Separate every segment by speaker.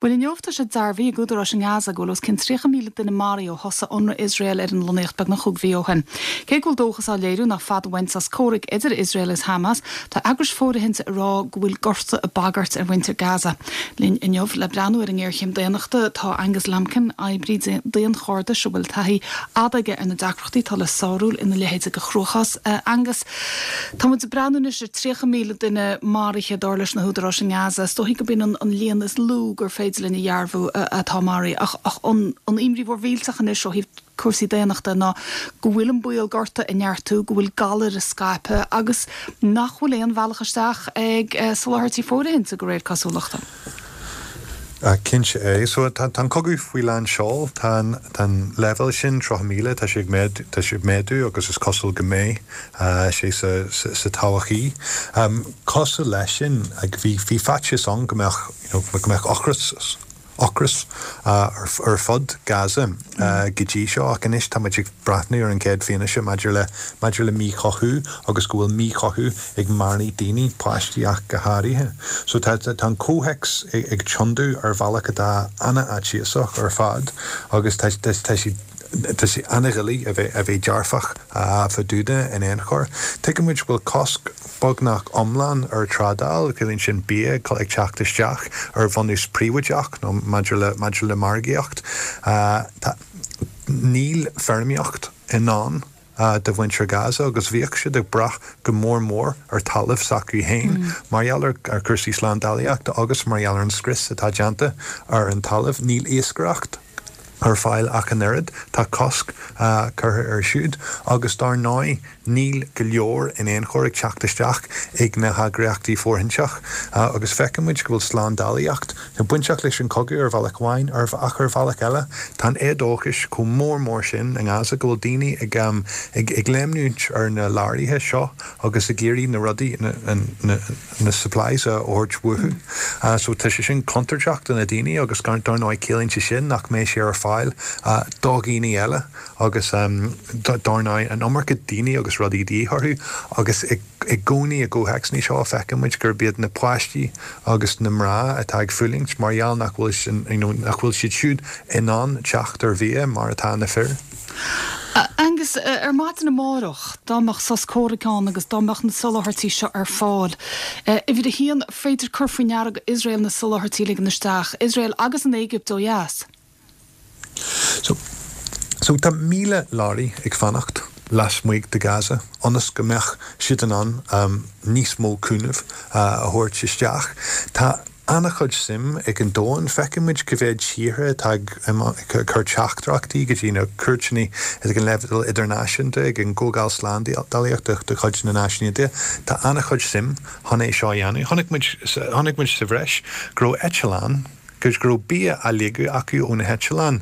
Speaker 1: Bhuel inniu tá sé dearbhaithe ag údaráis i nGaza go bhfuil os cionn 30,000 duine maraithe ó thosaigh ionradh Iosrael ar an lonnaíocht beagnach chúig mhí ó shin. Cé go bhfuil dóchas á léiriú nach fada uainn sos comhraic idir Iosrael agus Hamas, tá eagrais fóirithinte ag rá go bhfuil gorta ag bagairt ar mhuintir Gaza. Linn inniu le breathnú ar an ngéarchéim daonnachta tá Angus Lambkin, oibrí daonchairdis a bhfuil taithí fhada aige ar na deacrachtaí atá le sárú ina leithéid de chruachás. Angus. Tá muid ag breathnú anois ar 30,000 duine maraithe, dar leis na húdaráis i nGaza. Is dóichí gurb in an líon is lú gur féidir linn a dhearbhú atá maraithe. Ach an imní mhór mhillteach anois ó thaobh cúrsaí daonnachta ná go bhfuil an baol gorta ag neartú, go bhfuil galair ag scaipeadh agus nach bhfuil aon bhealach isteach ag soláthairtí fóirithinte, de réir cosúlachta.
Speaker 2: Cinnte é. So tá an cogadh faoi lán seoil. Tá an tá an leibhéal sin, 30,000, tá sé ag méadú, tá sé ag méadú agus is cosúil go mbeidh sé sa sa todhchaí. Cosúil leis sin, bhí bhí faitíos ann go mbeadh you know go mbeadh ocras ocras ar ar fud Gaza go dtí seo ach anois tá muid ag breathnú ar an chéad fianaise maidir le maidir le míchothú agus go bhfuil míchothú ag marú daoine, páistí ach go háirithe. So tá tá an comhthéacs ag tiontú ar bhealach atá an-fhaitíosach ar fad agus tá tá tá sé tá sé an-dhoiligh a bheith a bheith dearfach fá dtaobh de in aon chor. Tuigeann muid go bhfuil cosc beagnach iomlán ar trádáil, ciallaíonn sin bia ag teacht isteach ar bhunús príobháideach nó maidir le maidir le margaíocht. Tá níl feirmeoireacht i ndán do mhuintir Gaza agus bhíodh siad ag brath go mór mór ar talamh s'acu féin mar gheall ar chúrsaí slándálaíochta agus mar gheall ar an scrios atá déanta ar an talamh. Níl iascaireacht ar fáil ach an oiread, tá cosc curtha air siúd agus dar ndóigh níl go leor in aon chor ag teacht isteach ag na heagraíochtaí fóirthinteach agus feiceann muid go bhfuil slándálaíocht bainteach leis an chogadh ar bhealach amháin ach ar bhealach eile tá an éadóchas chomh mór mór sin i nGaza go bhfuil daoine ag ag léimniúint ar na leoraithe seo agus ag iarraidh na rudaí na supplies a thabhairt uathu. So tá sé sin contúirteach do na daoine agus dar ndóigh ciallaíonn sé sin nach mbeidh sé ar fáil do dhaoine eile agus dar ndóigh an iomarca daoine agus rudaí de dhíth orthu agus i I gcónaí i gcomhthéacsanna seo feiceann muid gurb iad na páistí agus na mná atá ag fulaingt mar gheall nach bhfuil you know nach bhfuil siad siúd in ann teacht ar bhia mar atá na fir.
Speaker 1: Angus, ar maidin amárach, dá mbeadh sos comhraic ann agus dá mbeadh na soláthairtí seo ar fáil, uimhir a haon, féidir cur faoi ndeara go Iosrael na soláthairtí a ligean isteach, Iosrael agus an Éigipt ó dheas.
Speaker 2: So, so tá 1,000 leoraí ag fanacht lasmuigh de Gaza ionas go mbeadh siad in ann níos mó cúnaimh a thabhairt isteach. Tá an-chuid suim ag an domhan. Feiceann muid cá mhéad tíortha atá ag cur teachtaireachtaí go dtí na cúirteanna ag an leibhéal idirnáisiúnta, ag an gComhdháil Slándálaíochta de chuid na Náisiún Aontaithe. Tá an-chuid suim chun é seo a dhéanamh. Chonaic muid, chonaic muid sa bhreis go raibh eitleán, go raibh bia á ligeadh acu ó na heitleáin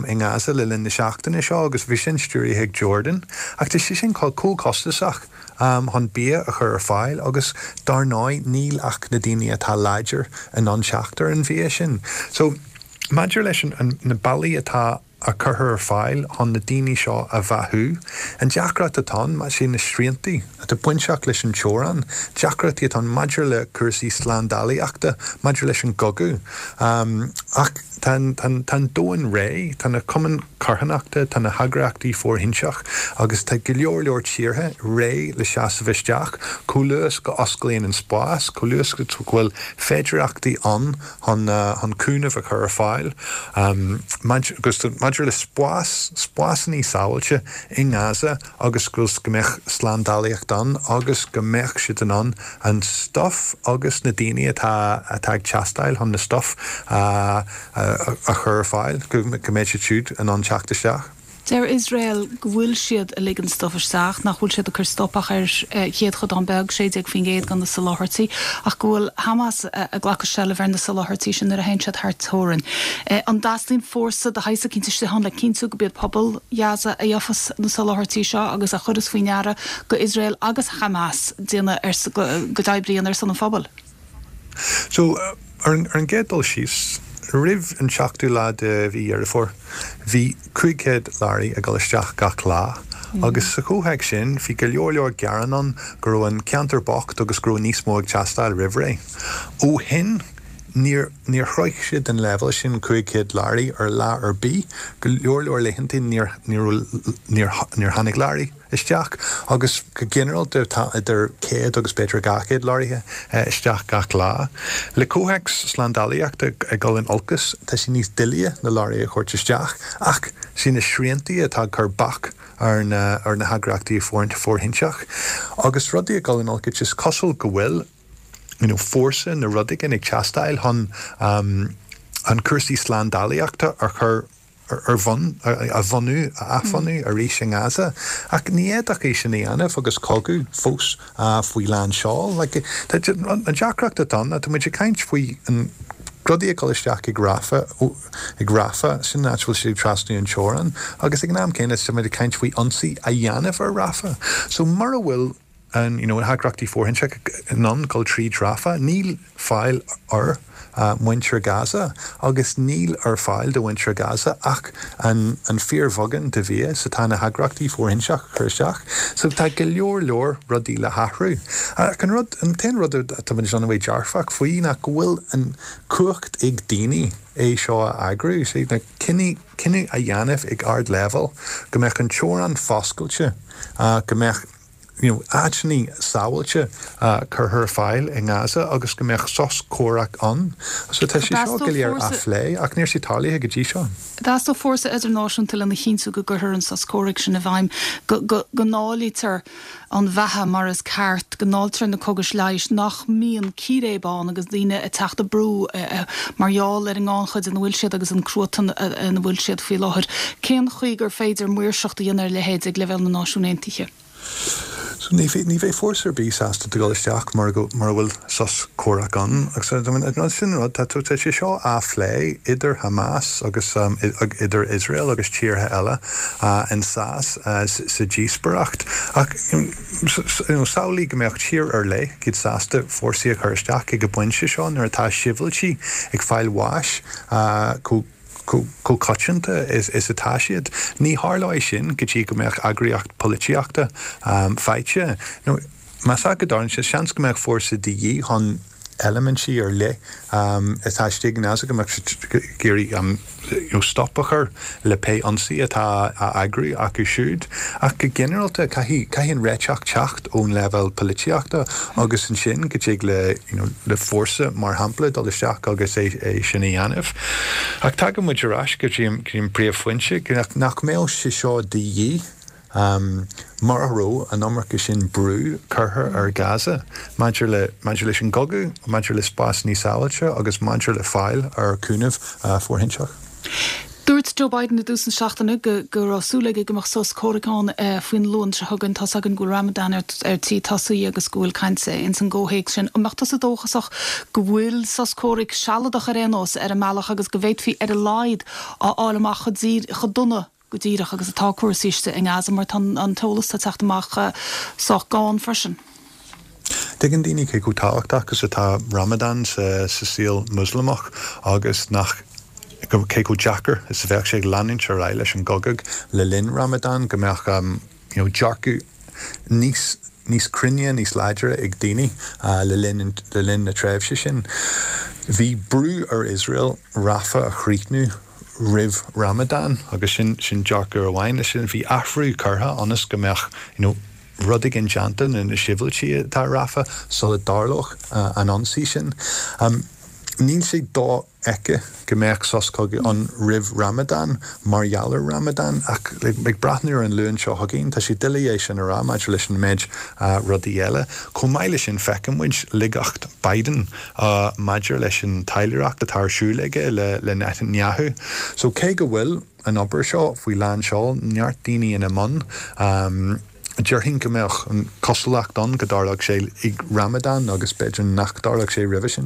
Speaker 2: i nGaza le linn na seachtaine seo agus bhí sin stiúraithe ag Jordan. Ach tá sé sin chomh costasach chun bia a chur ar fáil agus dar ndóigh níl ach na daoine atá láidir in ann teacht ar an bhia sin. So maidir leis na bealaí atá a curtha ar fáil chun na daoine seo a bheathú. An deacracht atá ann, sé na sriantaí atá bainteach leis an teorainn, deacrachtaí atá ann maidir le cúrsaí slándálaíochta, maidir leis an gcogadh. Ach tá an domhan réidh, tá na cumainn carthanachta, tá na heagraíochtaí fóirthinteach agus tá go leor leor tíortha réidh le seasamh isteach chomh luath is go osclaíonn an spás, chomh luath is go bhfuil féidireachtaí ann chun chun cúnamh a chur ar fáil agus maidir le spás, spásanna sábháilte i nGaza agus go mbeadh slándálaíocht ann agus go mbeadh siad in ann an stuif agus na daoine atá atá ag teastáil chun na stuif a a chur ar fáil, go mbeidh siad siúd in ann teacht isteach.
Speaker 1: Deir Iosrael go bhfuil siad ag ligean stuif isteach, nach bhfuil siad ag cur stop ach ar chéadchodán beag, 16% de na soláthairtí, ach go bhfuil Hamas ag glacadh seilbh ar na soláthairtí sin nuair a théann siad thar teorainn. An dteastaíonn fórsa de shaghas eicínt istigh ann le cinntiú go b'iad pobal Ghaza a gheofas na soláthairtí seo agus a chuireas faoi ndeara go Iosrael agus Hamas déanamh ar go n-oibríonn ar son an phobail?
Speaker 2: So, ar an gcéad dul síos, roimh an seachtú lá de mhí Dheireadh Fómhair, bhí 500 leoraí ag dul isteach gach lá, agus sa chomhthéacs sin, bhí go leor leor gearán ann go raibh an ceantar bocht agus go raibh níos mó ag teastáil roimh ré. Ó shin, Níor, níor shroich siad an leibhéal sin, 500 leoraí, ar lá ar bith. Go leor leor laethanta níor, níor, níor, níor tháinig leoraí isteach agus go ginearálta tá idir 100 agus b'fhéidir 200 leoraithe isteach gach lá. Le comhthéacs slándálaíochta ag dul in olcas, tá sé níos doilighe na leoraithe a thabhairt isteach ach sé na sriantaí atá ag cur bac ar na ar na heagraíochtaí fóirithinte agus rudaí ag dul in olcas is cosúil go bhfuil you know fórsa nó rud éigin ag teastáil chun chun cúrsaí slándálaíochta a chur ar bhun, a bhunú, a athbhunú arís i nGaza. Ach ní fhéadfadh é sin a dhéanamh agus cogadh fós faoi lán seoil. Like, an deacracht atá ann ná tá muid ag caint faoi an rudaí ag dul isteach ag Rafah, ag Rafah, sin an áit a bhfuil siad ag trasnú an teorainn, agus ag an am céanna tá muid ag caint faoi ionsaí a dhéanamh ar Rafah. So mura bhfuil an you know na heagraíochtaí fóirithinte in ann dul tríd Rafah, níl fáil ar mhuintir Gaza agus níl ar fáil do mhuintir Gaza ach an an fíorbheagán de bhia is atá na heagraíochtaí fóirithinte ag cur isteach. So tá go leor leor rudaí le hathrú. Ach an rud, an t-aon rud atá muid in ann a bheith dearfach faoi ná go bhfuil an cumhacht ag daoine é seo a eagrú. Sé na cinneadh cinneadh a dhéanamh ag ardleibhéal go mbeadh an teorainn foscailte, go mbeadh you know, áiteanna sábháilte curtha ar fáil i nGaza agus go mbeadh sos comhraic ann. So tá sé seo go léir á phlé ach níl sé tarlaithe go dtí seo.
Speaker 1: Theastódh fórsa idirnáisiúnta lena chinntiú go gcuirfear an sos comhraic sin i bhfeidhm, go go ndáilítear an bheatha mar is ceart, go ndáiltear na cógais leighis, nach mbíonn círéib ann agus daoine ag teacht brú mar gheall ar an ngannchuid ina bhfuil siad agus an cruatan ina bhfuil siad faoi láthair. Cén chaoi gur féidir maoirseacht a dhéanamh ar a leithéid ag leibhéal na Náisiún Aontaithe?
Speaker 2: So ní ní bheidh fórsa ar bith sásta dul isteach mura go mura bhfuil sos comhraic ann. Agus I mean sin an rud, tá tá sé seo á phlé idir Hamas agus idir Iosrael agus tíortha eile in sa sa díospóireacht. Ach you know samhlaigh go mbeadh tír ar leith iad sásta fórsaí a chur isteach ag an bpointe seo nuair atá sibhialtaigh ag fáil bháis chomh chomh coitianta is atá siad. Ní tharlóidh sin go dtí go mbeadh eagraíocht polaitíochta faighte. Nó más ea go dtarlaíonn sé, seans go mbeadh fórsa de dhíth chun eilimintí ar leith atá istigh i nGaza, go mbeadh siad ag iarraidh stop a chur le pé ionsaí atá á eagrú acu siúd. Ach go ginearálta, caithfidh caithfidh an réiteach teacht ón leibhéal polaitíochta agus ansin go dtig le you know le fórsa, mar shampla, dul isteach agus é é sin a dhéanamh. Ach tagann muid ar ais go dtí an go dtí an príomhphointe, nach mbeadh sé seo de dhíth mura raibh an iomarca sin brú curtha ar Gaza maidir le maidir leis an gcogadh, maidir le spás níos sábháilte agus maidir le fáil ar chúnamh fóirithinte.
Speaker 1: Dúirt Joe Biden i dtús na seachtaine go go raibh súil aige go mbeadh sos comhraic ann faoin Luan seo chugainn. Tá's againn go bhfuil Ramadan ar ar tí tosaí agus go bhfuil caint ins an gcomhthéacs sin. An mbeadh tusa dóchasach go bhfuil sos comhraic sealadach ar aon nós ar an mbealach agus go bhféadfaí ar a laghad a fháil amach chomh chomh dona go díreach agus atá cúrsaí istigh i nGaza mar tá an t-eolas atá ag teacht amach sách gann freisin.
Speaker 2: Tuigeann daoine cé chomh tábhachtach is atá Ramadan sa saol Moslamach agus nach cé chomh deacair is a bheadh sé leanúint ar aghaidh leis an gcogadh le linn Ramadan, go mbeadh you know dearcadh níos níos cruinne, níos láidre ag daoine le linn le linn na tréimhse sin. Bhí brú ar Iosrael Rafah a chríochnú roimh Ramadan agus sin sin dearcadh amháin leis sin. Bhí athrú curtha ionas go mbeadh you know rud éigin déanta do na sibhialtaigh atá i Rafah sula dtarlódh an ionsaí sin. Níl sé dofheicthe go mbeadh sos cogaidh ann roimh Ramadan mar gheall ar Ramadan ach ag breathnú ar an Luan seo chugainn tá sé doiligh é sin a rá maidir leis an méid rudaí eile. Chomh maith leis sin feiceann muid laigeacht Biden maidir leis an taidhleoireacht atá ar siúl aige le Netanyahu. So cé go bhfuil an obair seo faoi lán seoil, neart daoine ina mbun. Déarfainn go mbeadh an cosúlacht ann go dtarlódh sé ag Ramadan agus b'fhéidir nach dtarlódh sé roimhe sin.